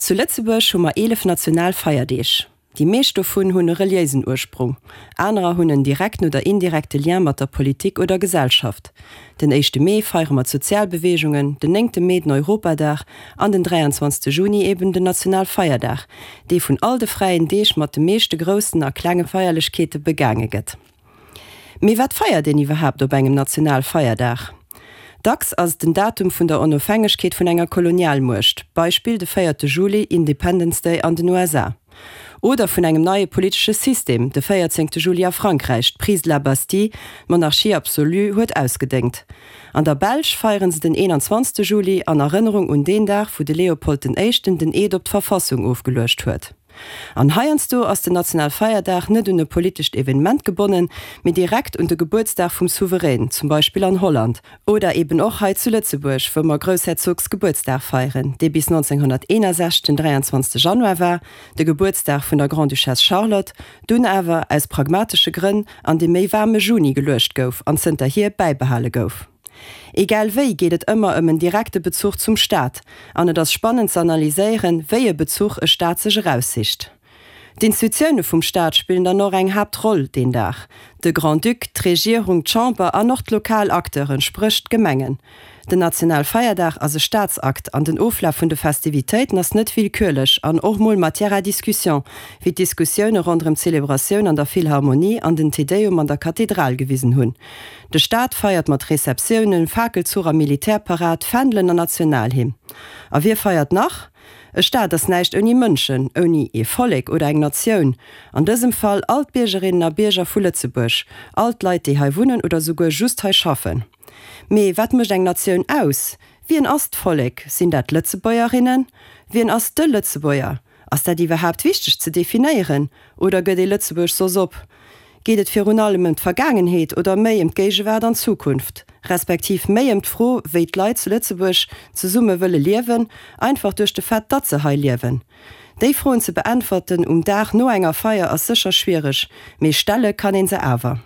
Zu Lëtzebuerg hu mer 11 national Feierdeeg. Déi meescht dovun hunn e reliéisen Ursprung, anerer hunn en direkten oder indirekte Lien mat der Politik oder Gesellschaft. Den éischte Mee feiere mer d'Sozialbeweegungen, den néngte Mee den Europadag an den 23. Juni eben den Nationalfeierdag, dee vun all de fräien Deeg mat de meeschte groussen a klenge Feierlechkeete begaange gëtt. Mee wat feiert een iwwerhaapt op engem Nationalfeierdag? Dacks ass et den Datum vun der Onofhängegkeet vun enger Kolonialmuecht, Beispill de véierte Juli, Independence Day an den USA, oder vun engem neie politesche System, de véierzéngte Juli a Frankräich, d'Prise de la Bastille, d'Monarchie absolue huet ausgedéngt. An der Belsch feieren se den 21. Juli an Erënnerung un deen Dag, wou de Leopold den Éischten den Eed op d'Verfassung ofgeluecht huet. An heiansdo ass den Nationalfeierdag net un e politescht Evenement gebonnen, mee direkt un de Gebuertsdag vum Souverän, zum Beispill an Holland, oder eben och hei zu Lëtzebuerg, wou mer Groussherzogsgebuertsdag feieren, dee bis 1961 den 23 Januar war, de Gebuertsdag vun der Grande-Duchesse Charlotte, dunn awer, aus pragmatesche Grënn, an de méi waarme Juni geluecht gouf an zënterhier bäibehale gouf. Egal wéi geet et ëmmer ëm en direkte Bezuch zum Staat, an et ass spannend ze analyséieren, wéi e Bezuch e Staat sech eraussicht. D'Institutioune vum Staat spillen dann och eng Haaptroll deen Dag, de Grand-Duc, d'Regierung, d'Chamber an och d'lokal Acteuren, spréch d'Gemengen. Den Nationalfeierdag ass e Staatsakt an den Oflaf vun de Festivitéiten ass net willkürlech an och mol Matière à discussion, wéi d'Diskussioune ronderëm d'Zelebratioun an der Philharmonie an den Te Deum an der Kathedral gewisen hunn. De Staat feiert mat Receptiounen, Fakelzuch a Militärparad, Fändelen an Nationalhymn. A wie feiert nach? E Staat ass näischt ouni Mënschen, ouni ee Vollek oder eng Natioun, an dësem Fall all d'Biergerinnen a Bierger vu Lëtzebuerg, all d'Leit déi hei wunnen oder souguer just hei schaffen. Mee wat mécht eng Natioun aus? Wien ass d'Vollek? Sinn dat d'Lëtzebuergerinnen? Wien ass de Lëtzebuerger? Ass dat iwwerhaapt wichteg ze definéieren oder gëtt ee Lëtzebuerg soss op? Geet et virun allem ëm d'Vergaangenheet oder méi ëm d'Géigewaart an d'Zukunft? Respektiv méi ëm d'Fro, wéi d'Leit zu Lëtzebuerg zesumme wëlle liewen, einfach duerch de Fait, datt se hei liewen? Déi Froen ze beäntwerten um Dag no enger Feier ass sécher schwiereg, mee stelle kann een se awer.